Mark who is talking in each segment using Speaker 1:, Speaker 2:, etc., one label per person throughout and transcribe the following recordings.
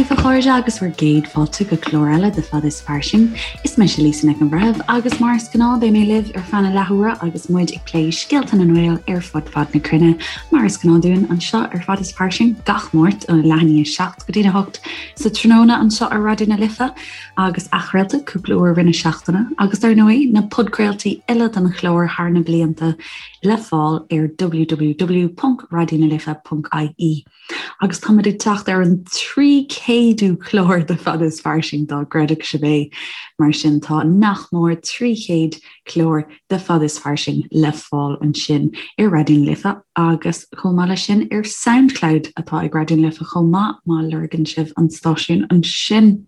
Speaker 1: daoibh a chairde agus bhur gcéad fáilte go clár eile de Fada is Fairsing. Is mise Lisa Nic an Bhreithimh agus mar is gnáth beidh mé libh ar feadh na leathuaire agus muid ag plé scéalta na nGael ar fud fad na cruinne. Mar is gnáth dúinn anseo ar Fada is Fairsing gach Máirt óna leath i ndiaidh 7 go dtína 8 sa tráthnóna anseo ar Raidió na Life agus athchraolta cúpla uair i rith na seachtaine agus dar ndóigh na podchraoltaí uile den chlár thar na blianta le fáil ar www.raidionalife.ie. Agus táimid ag teacht ar an 300ú clár de Fada is Fairsing, dá gcreidfeadh sibh é. Mar sin tá nach mór 300 clár de Fada is Fairsing le fáil ansin ar Raidió na Life agus chomh maith leis sin ar Soundcloud atá ag Raidió na Life chomh maith má lorgann sibh an stáisiún ansin.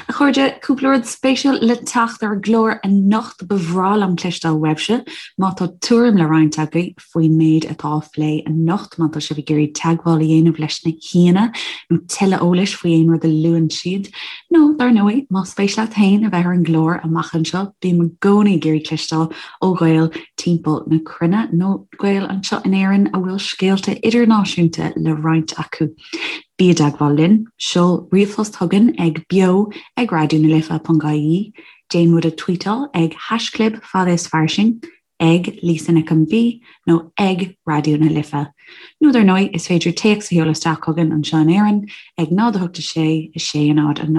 Speaker 1: A chairde, cúpla rud spéisiúil le teacht ar an gclár anocht. Ba bhreá liom cloisteáil uaibhse má tá tuairim le roinnt agaibh faoin méid atá á phlé anocht. Má tá sibh ag iarraidh teagmháil a dhéanamh leis na haíonna nó tuilleadh eolais faoi aon rud a luann siad, nó, dar ndóigh, más spéis leat féin a bheith ar an gclár amach anseo, bím i gcónaí ag iarraidh cloisteáil ó Ghaeil timpeall na cruinne, nó Gaeil anseo in Éirinn a bhfuil scéalta idirnáisiúnta le roinnt acu. Bí i dteagmháil linn, seol ríomhphost chugainn ag beo ag raidionalife.ie, déan muid a tweetáil ag haischlib fada is fairsing, ag Lisa Nic an B nó ag Raidió na Life. Nó dar ndóigh, is féidir téacs a sheoladh isteach chugainn anseo in Éirinn ag 0 8 6 6 0 0 1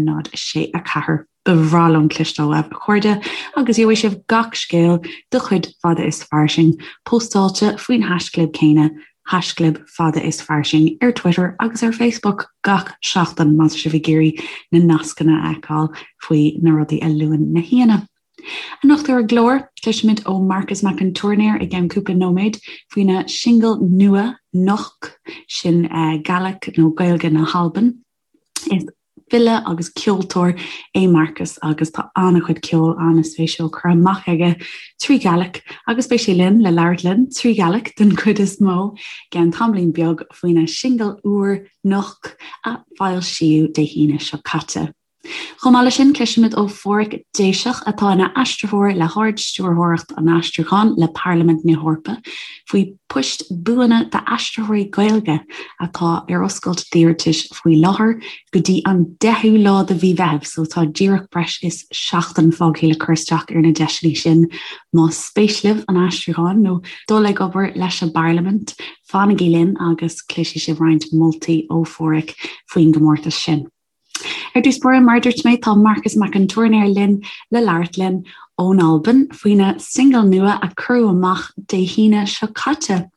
Speaker 1: 0 6 4. Ba bhreá liom cloisteáil uaibh, a chairde, agus gheobhaidh sibh gach scéal de chuid Fada is Fairsing póstáilte faoin haischlib céanna, haischlib Fada is Fairsing, ar Twitter agus ar Facebook gach seachtain má tá sibh ag iarraidh na nascanna a fheiceáil faoi na rudaí a luann na haíonna. Anocht ar an gclár, cloisfimid ó Marcas Mac an Tuairneir i gceann cúpla nóiméad faoina shingil nua, Noch, sin Gaelic nó Gaeilge na hAlban. Is file agus ceoltóir é Marcas agus tá an-chuid ceoil an-spéisiúil curtha amach aige trí Ghaelic agus beidh sé linn le labhairt linn trí Ghaelic den chuid is mó i gceann tamaillín beag faoina shingil úr, Noch, a foilsíodh Dé hAoine seo caite. Chomh maith leis sin, cloisfimid ó Phádhraic Déiseach, atá ina aistritheoir le hArd-Stiúrthóireacht an Aistriúcháin le Parlaimint na hEorpa, faoi poist buana d'aistritheoirí Gaeilge atá ar oscailt d'iarratais faoi láthair go dtí an 10ú lá de mhí Mheithimh, so tá díreach breis is seachtain fágtha le cur isteach ar na deiseanna sin. Más spéis libh an aistriúchán nó dul ag obair leis an bParlaimint, fanaigí linn agus cloisfidh sibh roinnt moltaí ó Phádhraic faoin gcomórtas sin. Ar dtús báire, mar a dúirt mé, tá Marcas Mac an Tuairneir linn le labhairt linn ón Albain faoina singil nua a cuireadh amach Dé hAoine seo caite.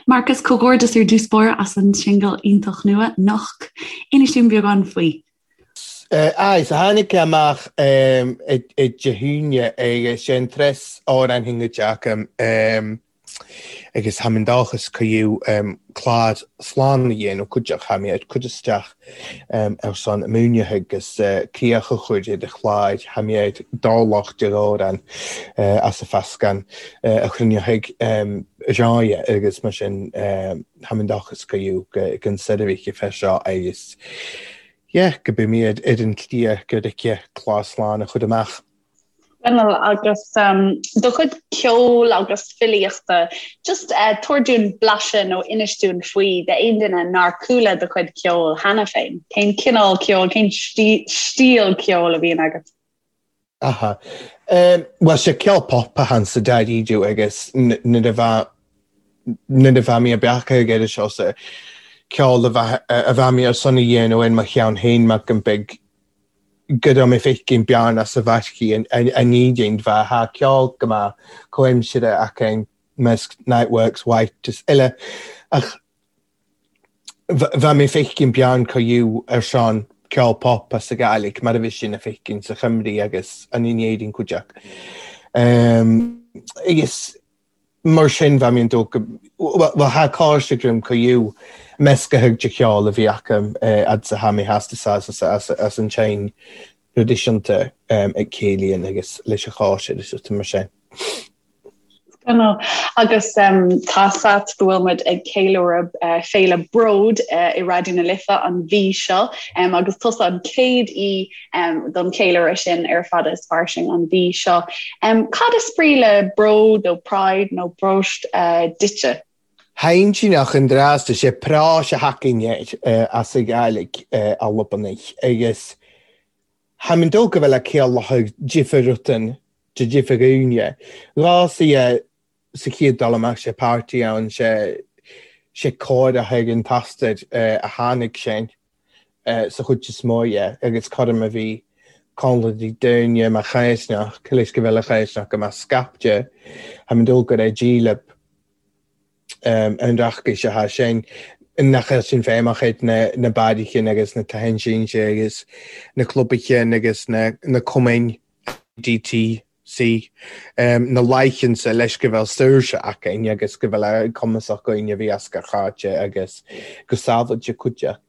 Speaker 1: Marcas, comhghairdeas ar dtús báire as an singil iontach nua, Noch. Inis dúinn beagán faoi.
Speaker 2: Aye, so tháinig sé amach Dé hAoine agus sé an treas amhrán thingaid agam. Agus tha mi an-dòchas gu fhiù clàr slán a dhéanamh cuideachd, tha mi ag cur isteach air son maoinithe agus críoch a chur ar an chlár, tha mi ar dobharlach de dh'amhrain as an mheascán a chruinneochaidh ráidhe agus mar sin tha mi an-dòchas gu fhiù gun seirbhíse fé seo agus yeah go beidh mi ar an tslí gur aici clár slán a chur amach.
Speaker 3: Scannal, Agus do chuid ceoil agus filíochta, just tabhair dúinn blaiseadh nó inis dúinn faoi d'aon duine nár chuala do chuid ceoil cheana féin. Cén cineál ceoil, cén stíl ceoil a bhíonn agat?
Speaker 2: Aha. Bhuel, sé ceol pop a tha ann sa dáiríre agus nuair a bheadh nuair a bheadh mé ag beacadh ag iarraidh seo sa ceol a bheadh mé ar son a dhéanamh ar mo cheann féin mar go mbeidh go raibh mé feicim bearna sa bhairchi an ní bheith thá ceol go maith comhaimsire aca measc Niteworks, White is eile ach bheadh mé feicim bearn co fhiú ar son ceol pop as a Gàidhlig mar a bhí sin a feicim sa Chymru agus an in Éirinn cuid acu. Agus Mar sin, bheadh mé an dóigh go, bhuel, tha càirde agam gu fhiù measctha de cheol a bhí acu fhad 's a tha mi theastas as an tseinn thraidisiúnta ag céilíonn agus leis an chóisir is rudaí mar sin.
Speaker 3: Scannal. Agus tá's a't go bhfuil muid ag ceiliúradh Féile Bród i Raidió na Life an mhí seo agus tusa an chéad aoi don cheiliúradh sin ar Fada is Fairsing an mhí seo. Cad is brí le bród nó pride nó bróst duitse?
Speaker 2: Haintíneach an dreasta sé práis a thacaíonn air as a Ghàidhlig Albanach agus tha mi dol go bheil a céalathadh difir rutan de difir dhaoine. Ghàsaidhe sa chéad dul amach sé páirtí ann sé sé cóireach ag an t-astar a tháinig sin sa chuid is mó dhe agus cothrom a bhí Connlaigh daoine mar chaisneach, leis go bhfuil a chaisneach go mbeadh scaipte, tha mi dol gur é dílib an reachtais atá sin, nach bhfuil sin feidhmeach ag na barraichin agus na tithe sínte agus na clubaichin agus na cumainn DT. C. Na laigheansa leis go bhfuil saoirse againn agus go bhfuil cumasach againn a bhí as gach áit agus go sábháilte cuideach.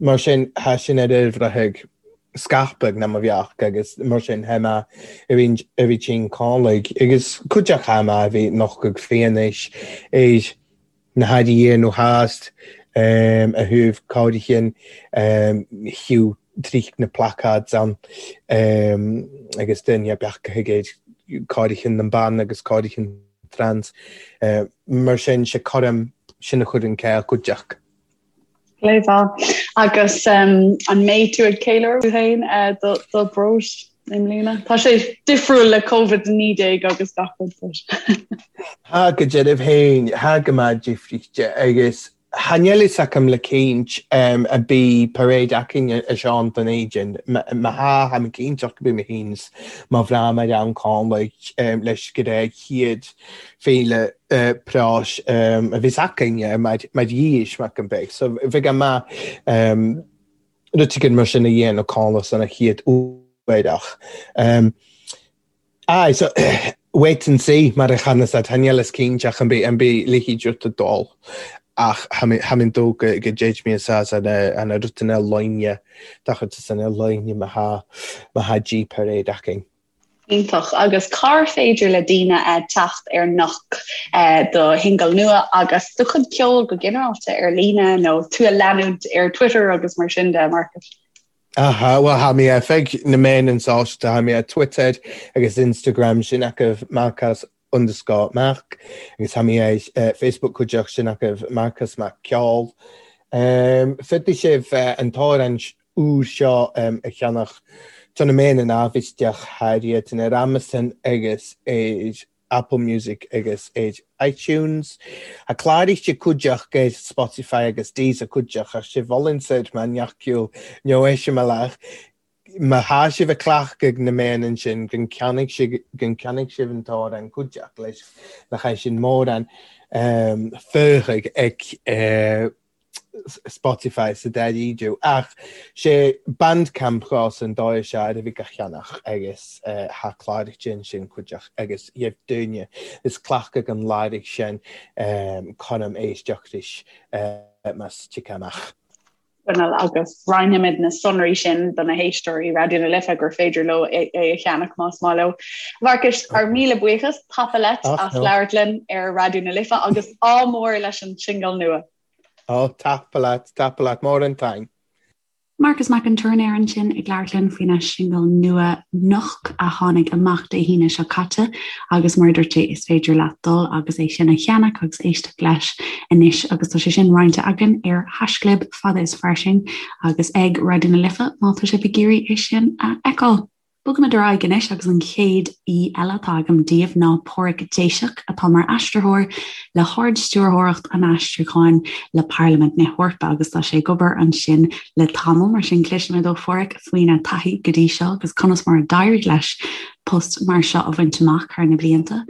Speaker 2: Mar sin, thá sin ar ar bhreithe scaipeadh ná mo bheach agus mar sin thá mé a bhí a bhí tinn cálaigh agus cuideach thá mé a bhí nochtadh fianaise ar na hairí iar nó theas a thabh cáirichin thiú tríd na placards ann agus duine beach ag ar cáirichin na mban agus cáirichin trans. Mar sin sé coram sin a chuir an céill cuideach.
Speaker 3: Léamh Agus an mbeidh tú ag ceiliúradh tú féin do breithlá i mbliana? Tá sé difriúil le Covid-19 agus gach rud but.
Speaker 2: Thá go deimhin féin, thá go maith difríte agus tha níl fhios agam le cinnt a bí parade againn a Seán don Éidin. Má thá, tha mi cinnteach go bí mé féin 's mo bhreá mar ann Conlaigh leis go raibh chéad féile práis a bhíos againn mar dhís mac an bheidh. So bheadh maith rud éigin mar sin a dhéanamh Conlaigh san a chéad uair ach aye so wait and see mar a chanas at tha níl fhios cinnteach an bí an bí leithéid rud a dul ach tha mi tha mi dó go go dtéid mé sa sa na an rutina loine dachar sa na loine má thá má thá G parade againn.
Speaker 3: Iontach. Agus cár féidir le daoine teacht ar Noch do shingil nua agus do chuid ceoil go ginearálta ar líne nó tú a leanúint ar Twitter agus mar sin de, Marcus?
Speaker 2: Aha, bhuel tha mi air feadh na meáin sóisialta, tha mi ar Twitter agus Instagram sin acu Marcas underscore Mac agus tha mi ar Facebook cuideachta sin acu Marcas Mac Ceol. Féadfaidh sibh an t-amhrán úr seo a cheannach do na meáin an ábhisteach Harriet ar Amazon agus ar Apple Music agus ar iTunes. Tha clàraithe cuideachta ar Spotify agus Deezer cuideachta ach sibh fhulaingt mar neach nó eiseamláir Má thá sibh ag cleachtadh na meáin ansin go gceannaigh sibh go gceannaigh sibh an t-amhrán cuideachta leis le haghaidh sin mórán feuchaidh ag Spotify sa dáiríre ach sé Bandcamp dhos an dóigh seo ar a bhí go cheannach agus thá cláraithe ansin cuideachta agus gheibh duine is cleachtadh an láirigh sin coram éisteacht leis más tiocfaidh amach.
Speaker 3: Bhuel agus roinnfimid na sonraí sin do na héisteoirí Raidió na Life gur féidir leo é a cheannach más maith leo. Mharcais, ár míle buíochas, tapa leat as labhairt linn ar Raidió na Life agus ádh mór leis an singil nua.
Speaker 2: Ó, tapa leat, tapa leat, mór an taing.
Speaker 1: Marcas Mac an Tuairneir ansin ag labhairt linn faoina shingil nua Noch a tháinig amach Dé hAoine seo caite agus mar a dúirt sé is féidir leat dul agus é sin a cheannach agus éisteacht leis anois agus tá sé sin roinnte againn ar haischlib fada is fairsing agus ag Raidió na Life má tá sibh ag iarraidh é sin a fheiceáil. Bogaimid ar aghaidh anois agus an chéad aoi eile atá agam daoibh ná Páraic Déiseach atá mar aistritheoir le hArd-Stiúrthóireacht an Aistriúcháin le Parlaimint na hEorpa agus tá sé ag obair ansin le tamall, mar sin cloisfimid ó Pháraic faoina taithí go dtí seo agus conas mar a d'éirigh leis post mar seo a bhaint amach thar na blianta.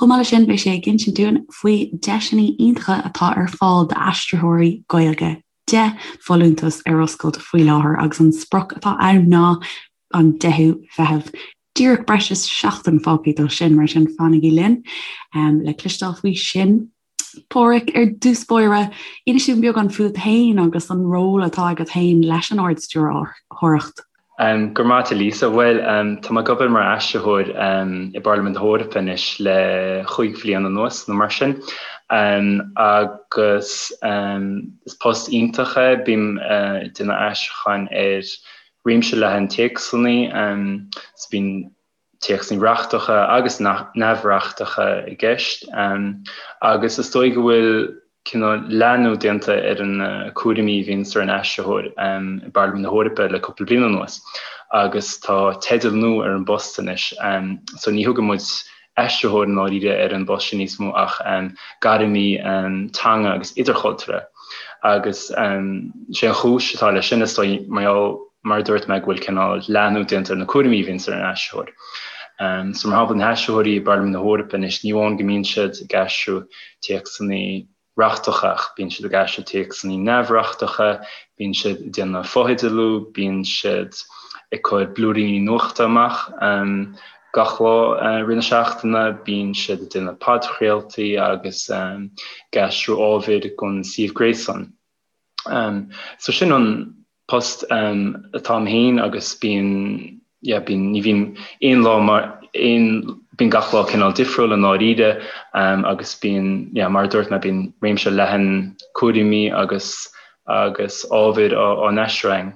Speaker 1: Chomh maith leis sin beidh sé ag insint dúinn faoi deiseanna iontacha atá ar fáil d'aistritheoirí Gaeilge. 10 folúntas ar oscailt faoi láthair agus an sprioc atá ann ná an 10ú Mheitheamh. Díreach breis is seachtain fágtha dó sin, mar sin fanaigí linn le cloisteáil faoi sin. Páraic, ar dtús báire, inis dúinn beagán fút féin agus an ról atá agat féin leis an Ard-Stiúrthóireacht.
Speaker 4: Go raibh maith agat a Lisa. Bhuel, tá mé ag obair mar aistritheoir i bParlaimint na hEorpa anois le chúig bhliain anuas nó mar sin. Agus is post iontach é, bím ag déanamh aistriúcháin ar réimse leathan téacsanna, so bíonn téacsanna reachtacha agus neamhreachtacha i gceist. Agus is dóigh go bhfuil. cineál leathnú déanta ar na cúraimí a bhíonns ar an aistritheoir i bParlaimint na hEorpa le cúpla bliain anuas agus tá teideal nua ar an bpost anois. So ní thugann muid aistritheoir i ndáiríre ar an bpost sin níos mó ach gairmí teanga agus idirchultúrtha. Agus sé an chúis atá leis sin is dóigh mar gheall, mar a dúirt mé, go bhfuil cineál leathnú déanta ar na cúraimí a bhíonns ar an aistritheoir. So mar shampla na haistritheoirí i bParlaimint na hEorpa anois ní amháin go mbíonn siad ag aistriú téacsanna reachtacha ach bíonn siad ag aistriú téacsanna neamhreachtacha, bíonn siad ag déanamh fotheidealú, bíonn siad ag cur blúiríní nuachta amach gach lá i rith na seachtaine, bíonn siad ag déanamh podchraoltaí agus ag aistriú ábhair don suíomh gréasáin. So sin an post atá a'm féin agus bíonn, yeah, bíonn, ní bhíonn aon lá mar aon, bíonn gach lá cineál difriúil i ndáiríre agus bíonn, yeah, mar a dúirt mé, bíonn réimse leathan cúraimí agus agus ábhair á á n-aistriú againn.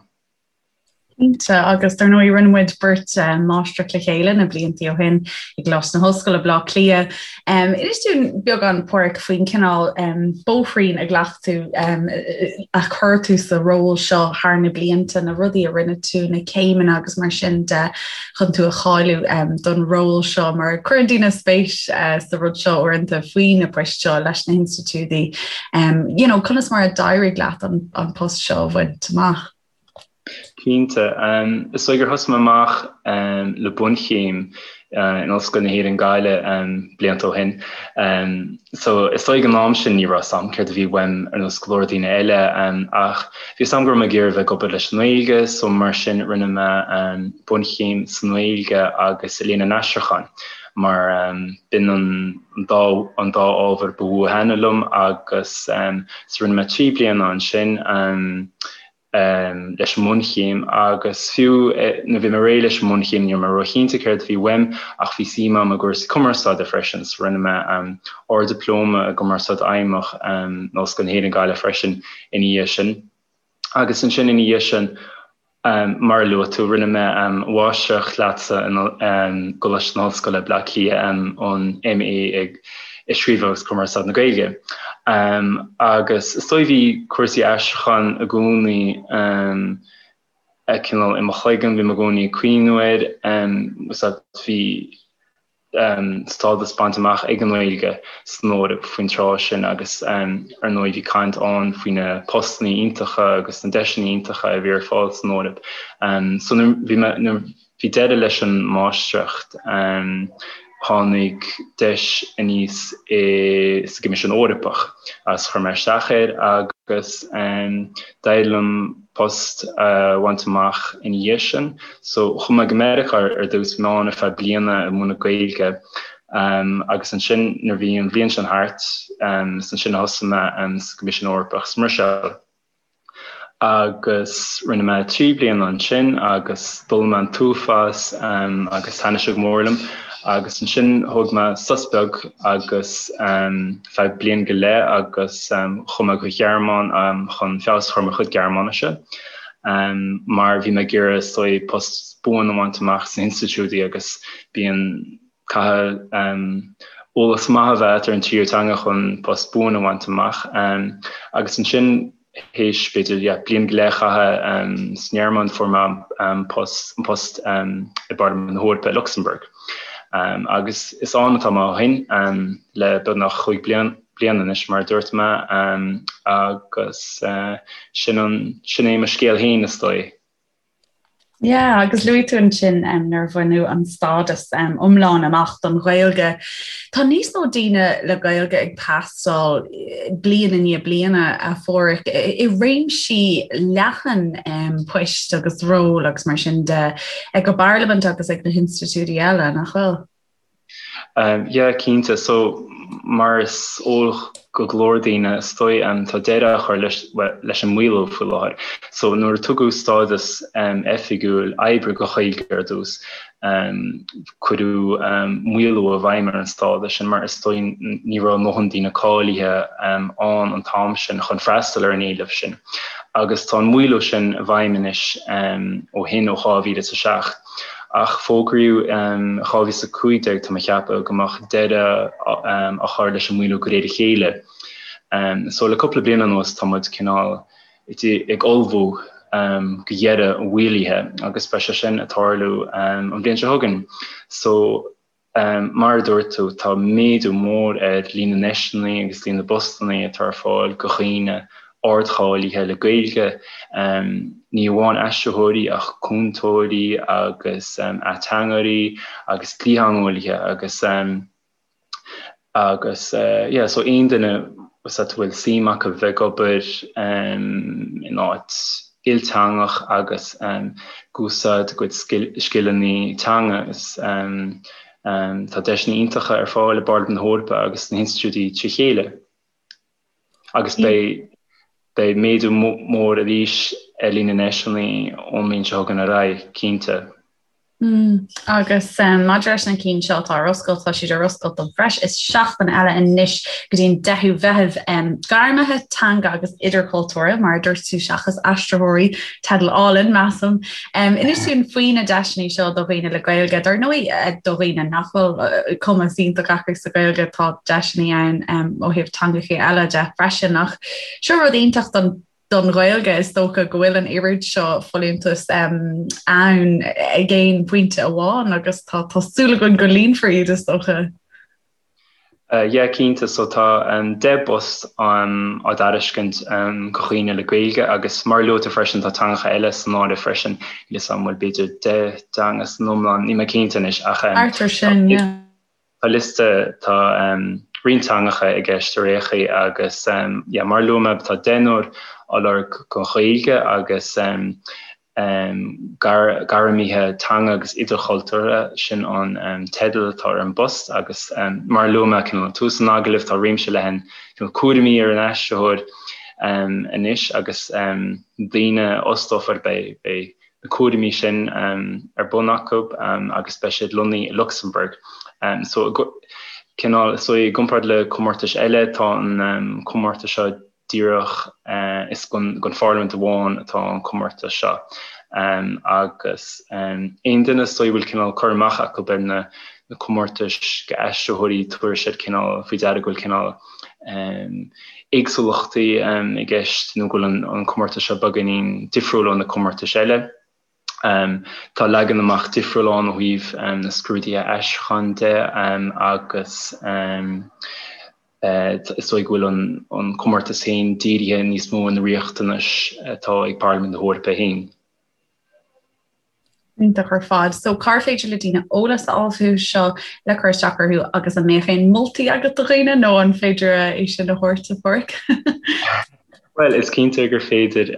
Speaker 1: Cinnte, agus dar ndóigh rinne muid beirt máistreacht le chéile na blianta ó shin i gColáiste na hOllscoile, Baile Átha Cliath. Inis dúinn beagán, Páraic, faoin cineál bóithrín a ghlac tú, a chuir tú sa ról seo thar na blianta, na rudaí a rinne tú, na céimeanna agus mar sin de chun tú a cháiliú don ról seo, mar cuireann daoine spéis sa rud seo uaireanta faoi na poist seo leis na hinstitiúidí. You know, conas mar a d'éirigh leat an post seo a bhaint amach?
Speaker 4: Cinnte. Is dóigh gur thosaigh mé amach le bunchéim in Ollscoil na hÉireann Gaillimh blianta ó shin. So is dóigh ag an am sin ní raibh 'fhios a'm céard a bhí uaim ar nós go leor daoine eile ach bhí 'fhios a'm go raibh mé ag iarraidh bheith ag obair leis an nGaeilge so mar sin rinne mé bunchéim sa nGaeilge agus i Léann an Aistriúcháin mar b'in an dá an dá ábhar ba mhó a thaitnigh liom agus so rinne mé 3 bliana ansin. leis an mbunchéim agus fiú nuair a bhí mé réidh leis an mbunchéim ní raibh mé róchinnte céard a bhí uaim ach bhí suim agam i gcúrsaí cumarsáide freisin so rinne mé Ard-Dioplóma i gCumarsáid Fheidhmeach in Ollscoil na hÉireann Gaillimh freisin ina dhiaidh sin. Agus ansin ina dhiaidh sin mar a luaigh tú rinne mé máistreacht leatsa i gColáiste na hOllscoile Baile Átha Cliath an MA i i Scríobh agus Cumarsáid na Gaeilge. Agus is dóigh bhí cúrsaí aistriúcháin i gcónaí cineál i mo chloigeann, bhí mé i gcónaí ag cuimhniú air, bhí stádas bainte amach ag an nGaeilge san Eoraip faoin tráth sin agus ar ndóigh bhí caint ann faoi na postanna iontacha agus na deiseanna iontacha a bhí ar fáil san Eoraip. So nuair bhí mé nuair Bhí deireadh leis an máistreacht. Tháinig deis aníos i sa gCoimisiún Eorpach agus chuir mé isteach air agus d'éirigh liom post a bhaint amach ina dhiaidh sin. So chuaigh mé go Meiriceá ar dtús, bhí mé ann ar feadh bliana ag múineadh Gaeilge agus ansin nuair a bhí an bhliain sin thart, is ansin a thosaigh mé sa gCoimisiún Eorpach sa mBruiséil. Agus rinne mé 3 bliana ansin agus d'fhoghlaim mé an t-uafás agus thaitnigh sé go mór liom agus ansin thóg mé sos beag agus feadh bliain go leith agus chuaigh mé go Ghearmáin chun feabhas a chur ar mo chuid Gearmáinise mar bhí mé ag iarraidh is dóigh post buan a bhaint amach sna hinstitiúidí agus bíonn Caithfidh eolas maith a bheith agat ar an tríú teanga chun post buan a bhaint amach. Agus ansin théis b'fhéidir yeah bliain go leith a chaitheamh sa nGearmáin fuair mé an post an post i bParlaimint na hEorpa i Lucsamburg. Agus is ann atá mé ó shin le beagnach chúig bliana anois mar a dúirt mé agus sin an sin é mo scéal féin is dóigh.
Speaker 1: Yeah, agus luaigh tú ansin um, nuair a bhaineadh an stádas um, iomlán amach don Ghaeilge. Tá níos mó daoine le Gaeilge ag teastáil eh, bliain i ndiaidh bliana a Pháraic i réimsí leathan um, poist agus ról agus mar sin de ag an bParlaimint agus ag na hinstitiúidí eile nach bhfuil?
Speaker 4: Yeah, cinnte. So, mar is eol go go leor daoine, is dóigh, tá deireadh á chur leis, bhuel, leis an maolú faoi láthair. So, nuair a tugadh stádas oifigiúil oibre don Ghaeilge ar dtús, cuireadh maolú i bhfeidhm ar an stádas sin mar is dóigh ní raibh a ndóthain daoine cáilithe ann an t-am sin chun freastal ar an éileamh sin. Agus tá an maolú sin i bhfeidhm anois ó shin, ó 2007. Ach fógraíodh in 2015, tá mé ag ceapadh, go mbeadh deireadh á chur leis an maolú de réir a chéile. So le cúpla bliain anuas tá muid cineál ag ullmhú go dheireadh an mhaolaithe agus beidh sé sin ag tarlú an bhliain seo chugainn. So mar a dúirt tú, tá méadú mór ar líon na ndeiseanna agus líon na bpostanna atá ar fáil go dhaoine ardcháilithe le Gaeilge, ní amháin aistritheoirí ach cúntóirí agus ateangairí agus dlítheangeolaithe agus Agus yeah, so aon duine a bhfuil suim acu bheith ag obair in áit ilteangach agus ag úsáid a gcuid scileanna teanga is tá deiseanna iontacha ar fáil i bParlaimint na hEorpa agus sna hinstitiúidí trí chéile. Agus beidh beidh méadú mór arís ar líon na ndeiseanna ón mbliain seo chugainn ar aghaidh, cinnte.
Speaker 1: Mm, agus um, maidir leis na cinn seo atá ar oscailt, tá siad ar oscailt don bhreis is seachtain eile anois go dtí an 10ú Mheitheamh um, gairmithe teanga agus idirchultúrtha mar a dúirt tú seachas aistritheoirí teideal álainn measaim. Um, inis dúinn faoi na deiseanna seo do dhaoine le Gaeilge, dar ndóigh eh, do dhaoine nach bhfuil eh, cumas iontach acu sa Ghaeilge tá deiseanna ann um, ó thaobh teangacha eile de freisin ach seo rud iontach don don Ghaeilge is dócha go bhfuil an oiread seo folúntas um, ann ag aon phointe amháin agus tá tá súil againn go líonfar iad is dócha.
Speaker 4: Yeah, cinnte. So tá 10 bpost á dtairiscint do dhaoine le Gaeilge agus mar a luaigh tú freisin tá teangacha eile san áireamh freisin. Níl 'fhios a'm an bhfuil b'fhéidir 10 dteanga san iomlán, níl mé cinnte anois ach
Speaker 1: Thart ar sin, yeah.
Speaker 4: tá liosta, tá roinnt teangacha i gceist ar aon chaoi agus yeah mar a luaigh mé tá deichniúr á lorg don Ghaeilge agus Gairmithe Teanga agus Idirchultúrtha, sin an teideal atá ar an bpost agus mar a luaigh mé cineál ag tús an agallaimh, tá réimse leathan cineál cúraimí ar an aistritheoir anois agus daoine a fhostófar beidh beidh na cúraimí sin ar bun acu agus beidh siad lonnaithe i Lucsamburg. So cineál so i gcomparáid le comórtais eile tá an comórtas seo díreach is don Pharlaimint amháin atá an comórtas seo agus aon duine is dóigh a bhfuil cineál cur amach acu ar na comórtais d'aistritheoirí tabharfaidh siad cineál faoi deara go bhfuil cineál éagsúlachtaí i gceist nó go bhfuil an comórtas seo beagáinín difriúil ó na comórtais eile. Tá leagan amach difriúil ann ó thaobh na scrúduithe aistriúcháin de agus is dóigh go bhfuil an comórtas féin dírithe níos mó ar na riachtanais atá ag Parlaimint na hEorpa féin.
Speaker 1: Iontach ar fad. So cár féidir le daoine eolas a fháil fúthu seo le cur isteach orthu agus an mbeadh aon moltaí agat do dhaoine nó an féidir é sin a thabhairt a Pháraic?
Speaker 4: Bhuel, is cinnte gur féidir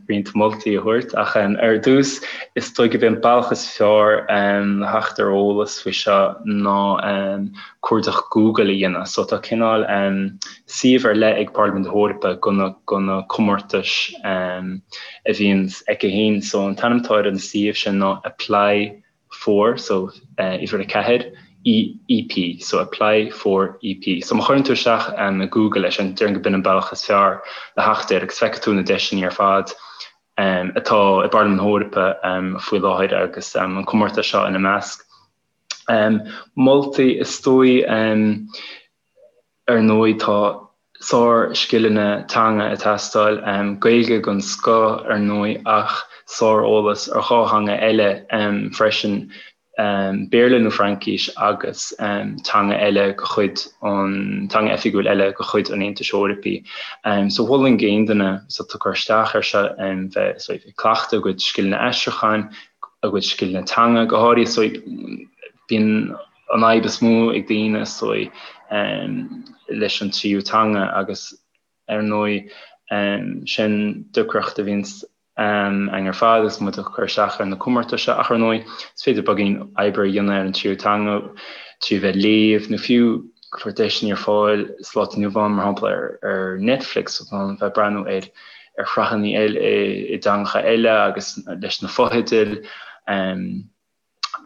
Speaker 4: roinnt moltaí a thabhairt, ach ar dtús, is dóigh gurb é an bealach is fearr le theacht ar eolas faoi seo ná cuardach Google a dhéanamh. So tá cineál suíomh ar leith ag Parlaimint na hEorpa do na comórtais a bhíonn aici féin. So an t-ainm atá ar an suíomh sin ná Apply for, so uimhir 4, EP, so apply for EP. So má chuireann tú isteach i Google é sin, déarfainn gurb in an bealach is fearr le theacht air agus feicfidh tú na deiseanna ar fad atá i bParlaimint na hEorpa faoi láthair agus an comórtas seo ina measc. Moltaí is dóigh Ar ndóigh tá sár-scileanna teanga ag teastáil, Gaeilge den scoth ar ndóigh ach sár-eolas ar dhá theanga eile freisin, Béarla nó Fraincis agus teanga eile de chuid an, teanga oifigiúil eile de chuid an Aontais Eorpaigh. So mholfainn d'aon duine atá ag cur isteach air seo bheith ag cleachtadh a gcuid scileanna aistriúcháin, a gcuid scileanna teanga go háirithe. So bíonn an fhadhb is mó ag daoine is dóigh leis an tríú teanga agus ar ndóigh sin deacracht a bhíonns againn ar fad agus muid ag cur isteach ar na comórtais seo ach ar ndóigh is féidir beagáinín oibre a dhéanamh ar an tríú teanga trí bheith ag léamh nó fiú go leor deiseanna ar fáil sa lá atá inniu ann mar shampla ar Netflix so bheith ag breathnú ar ar shraitheanna eile i dteangacha eile agus leis na fotheidil.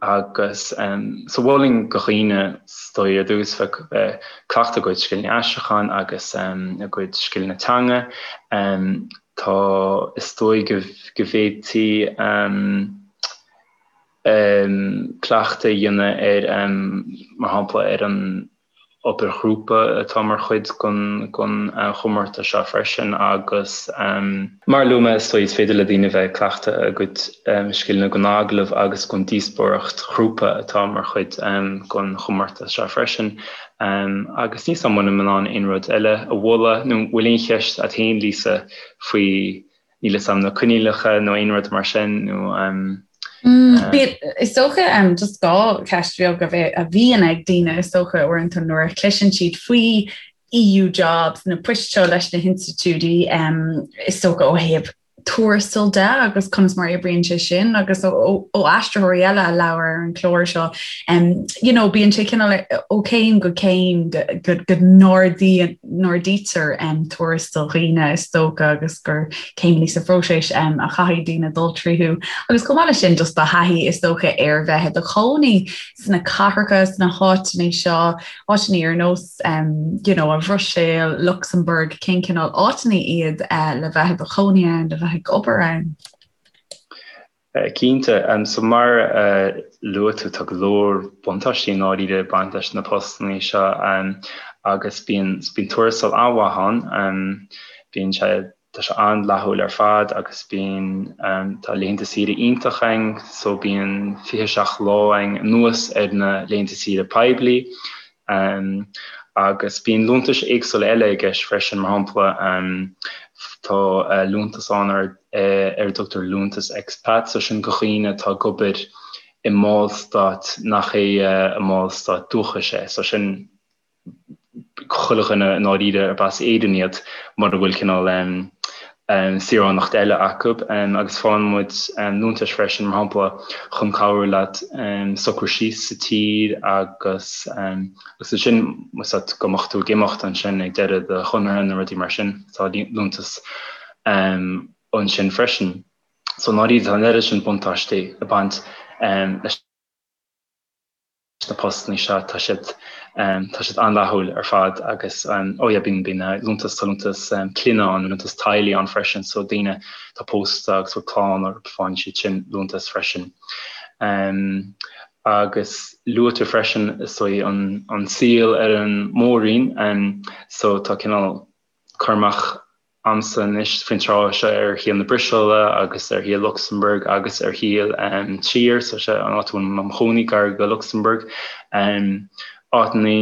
Speaker 4: Agus so mholfainn do dhaoine is dóigh ar dtús bheith ag cleachtadh a gcuid scileanna aistriúcháin agus a gcuid scileanna teanga. Tá is dóigh go bhféadfaí cleachtadh a dhéanamh ar, mar shampla, ar an. Obair ghrúpa atá mar chuid den chomórtas seo freisin agus mar a luaigh mé is dóigh is féidir le daoine bheith ag cleachtadh a gcuid scileanna don agallamh agus don díospóireacht ghrúpa atá mar chuid den chomórtas seo freisin. Agus níl 's a'm an bhfuilim in ann aon rud eile a mholadh nó an bhfuil aon cheist a't féin Lisa faoi níl 'fhios a'm na coinníollacha nó aon rud mar sin nó
Speaker 1: Bíonn, is dócha, just dhá cheist bheag a bhíonn ag daoine is dócha uaireanta nuair a chloiseann siad faoi EU jobs, na poist seo leis na hinstitiúidí, is dócha ó thaobh tuarastail de agus conas mar a oibríonn sé sin agus ó aistritheoirí eile a labhair ar an chlár seo, you know, bíonn sé cineál ó chéim go céim go go n-ardaítear tuarastal dhaoine is dócha agus gur céimeanna sa phróiseas a chaithfidh daoine dul tríothu. Agus chomh maith leis sin just do thaithí is dócha ar bheith i do chónaí sna cathracha, sna háiteanna seo, áiteanna ar nós you know, an Bhruiséil, Lucsamburg, cén cineál áiteanna iad le bheith i do chónaí ann, le bheith ag obair ann?
Speaker 4: Cinnte. So mar a luaigh tú, tá go leor buntáistí i ndáiríre ag baint leis na postanna seo agus bíonn bíonn tuarastal an-mhaith ann. Bíonn sé tá sé an-fhlaithiúil ar fad agus bíonn tá laethanta saoire iontach ann so bíonn 27 lá ann anuas ar na laethanta saoire poiblí. Agus bíonn liúntais éagsúla eile i gceist freisin, mar shampla tá liúntas ann ar ar a dtugtar liúntas expat, so sin do dhaoine atá ag obair i mballstát nach é a mballstát dúchais é, so sin chuile dhuine i ndáiríre arb as Éirinn iad mura bhfuil cineál saoránacht eile acu agus faigheann muid liúntais freisin, mar shampla, chun cabhrú leat socrú síos sa tír agus agus ansin más ea go mbeadh tú ag imeacht ansin ag deireadh do chonartha nó rudaí mar sin, tá liúntas ansin freisin. So i ndáiríre tá an oiread sin buntáistí ag baint leis. na postanna seo, tá siad tá siad an-fhlaithiúil ar fad agus oh yeah bíonn bíonn liúntas tá liúntas clainne ann, liúntas teaghlaigh ann freisin so daoine atá pósta agus bhfuil clann orthu faigheann siad sin liúntas freisin. Agus luaigh tú freisin is dóigh an an saol ar an mór-roinn so tá cineál cur amach a'msa anois faoin tráth seo ar shaol na Bruiséile agus ar shaol Lucsamburg agus ar shaol Trier, so sé an áit a bhfuil mé im chónaí gar go Lucsamburg. Áiteanna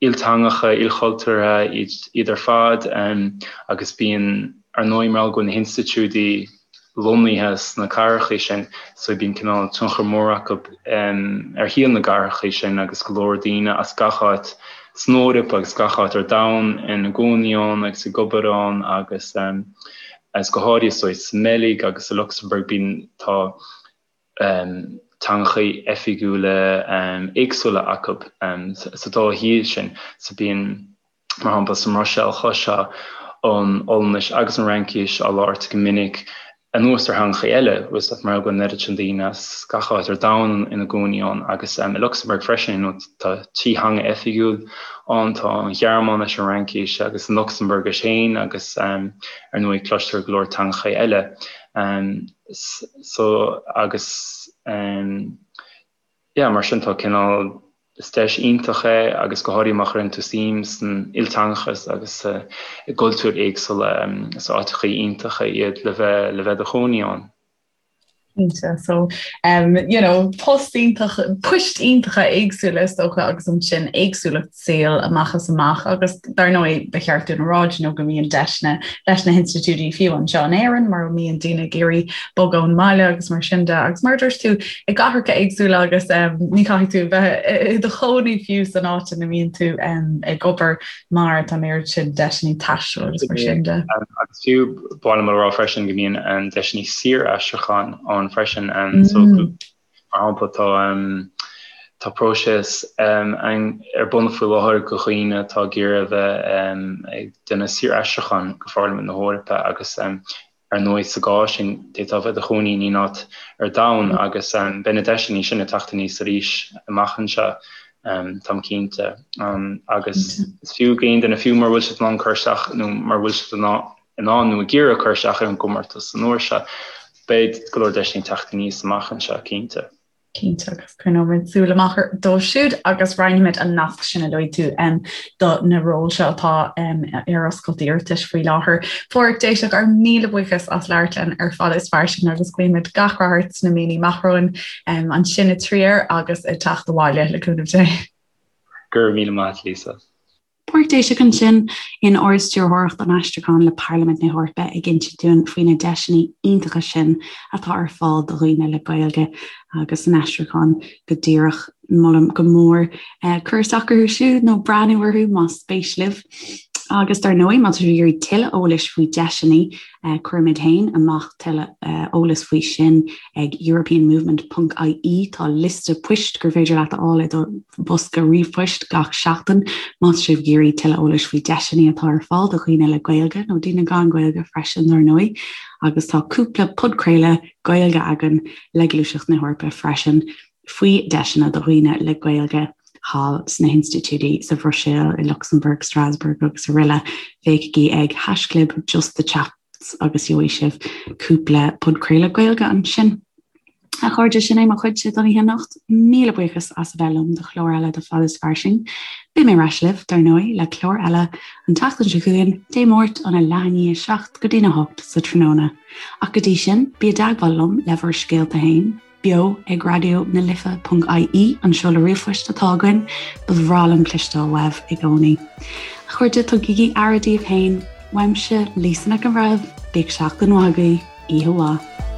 Speaker 4: ilteangacha, ilchultúrtha iad ar fad agus bíonn, ar ndóigh, mar gheall go bhfuil na hinstitiúidí lonnaithe sna cathracha sin so bíonn cineál tionchar mór acu ar shaol na gcathracha sin agus go leor daoine as gach áit san Eoraip agus gach áit ar domhan ina gcónaí ann agus ag obair ann agus agus go háirithe so sa mBeilg agus sa Lucsamburg bíonn tá teangacha oifigiúla éagsúla acu sa dá thír sin so bíonn Mar shampla, sa mBruiséil chloisfeá an Ollainnis agus an Fhraincis á labhairt go minic anuas ar theangacha eile, bhfuil mar go bhfuil an oiread sin daoine as gach áit ar domhan ina gcónaí ann agus i Lucsamburg freisin, you know, tá trí theanga oifigiúil ann, tá an Ghearmáinis, an Fhraincis agus an Lucsambuirgis féin agus ar ndóigh cloistear go leor teangacha eile. So agus yeah, mar sin tá cineál Is deis iontach é agus go háirithe má chuireann tú suim san ilteangachas agus i gcultúir éagsúla, is áiteacha iontacha iad le bheith le bheith i do chónaí ann.
Speaker 1: Cinnte, so um, you know, post iontach, poist iontacha éagsúla is dócha agus ansin éagsúlacht saoil amach is amach agus dar ndóigh ba cheart dúinn a rá you know, go mbíonn deiseanna leis na hinstitiúidí fiú anseo in Éirinn mar mbíonn daoine ag iarraidh bogadh ón mbaile agus mar sin de agus mar a dúirt tú i gcathracha éagsúla agus ní chaithfidh tú bheith i do chónaí fiú san áit ina mbíonn tú ag obair mar tá an oiread sin deiseanna taistil agus mar sin de.
Speaker 4: Agus fiú ba mhaith liom a rá freisin go mbíonn deiseanna saor-aistriúcháin ann freisin so mar shampla tá tá próiseas ar bun faoi láthair do dhaoine atá ag iarraidh a bheith ag déanamh saor-aistriúcháin go Pharlaimint na hEorpa agus Ar ndóigh, sa gcás sin, d'fhéadfá a bheith i do chónaí in aon áit ar domhan agus beidh na deiseanna sin ag teacht aníos arís amach anseo, táim cinnte. Agus is fiú d'aon duine, fiú mura bhfuil siad in ann cur isteach nó mura bhfuil siad in ann nó ag iarraidh cur isteach ar an gcomórtas an uair seo, beidh go leor deiseanna ag teacht aníos amach anseo, cinnte.
Speaker 1: Cinnte agus coinneoimid súil amach dóibh siúd agus roinnfimid an nasc sin a luaigh tú do na róil seo atá ar oscailt d'iarratais faoi láthair. Phádraic Déiseach, ár míle buíochas as labhairt linn ar Fada is Fairsing agus guímid gach rath ort sna míonna amach romhainn ansin i Trier agus ag teacht abhaile le cúnamh Dé.
Speaker 4: Go raibh míle maith agat Lisa.
Speaker 1: Pádraic Déiseach ansin in Ard-Stiúrthóireacht an Aistriúcháin le Parlaimint na hEorpa ag insint dúinn faoi na deiseanna iontacha sin atá ar fáil do dhaoine le Gaeilge agus san aistriúchán go díreach. Molaim go mór cur isteach orthu siúd nó breathnú orthu más spéis libh. Agus dar ndóigh, má tá sibh ag iarraidh tuilleadh eolais faoi deiseanna, Cuirimid féin amach tuilleadh eolais faoi sin ag europeanmovement ponc ie. Tá liosta poist gur féidir leat a fháil i do bhosca ríomhphoist gach seachtain má tá sibh ag iarraidh tuilleadh eolais faoi deiseanna atá ar fáil do dhaoine le Gaeilge, nó daoine gan Gaeilge freisin, dar ndóigh. Agus tá cúpla podchraoladh Gaeilge againn le Gluaiseacht na hEorpa freisin faoi deiseanna do dhaoine le Gaeilge thall sna hinstitiúidí sa Bhruiséil, i Lucsamburg, Strasbourg agus araile. Féachaigí ag haischlib justthechaps agus gheobhaidh sibh cúpla podchraoladh Gaeilge ansin. A chairde, sin é mo chuidse don oíche anocht. Míle buíochas as a bheith liom do chlár eile de Fada is Fairsing. Beidh mé ar ais libh, dar ndóigh, le clár eile an tseachtain seo chugainn, Dé Máirt óna leath i ndiaidh 7 go dtína 8 sa tráthnóna. Ach go dtí sin, bí i dteagmháil liom le bhur scéalta féin. beo ag raidió na life ponc ie an seoladh ríomhphoist atá againn, ba bhreá liom cloisteáil uaibh i gcónaí. A chairde, tugaigí aire daoibh féin, uaimse, Lisa Nic an Bhreithimh, bíodh seachtain mhaith agaibh, oíche mhaith.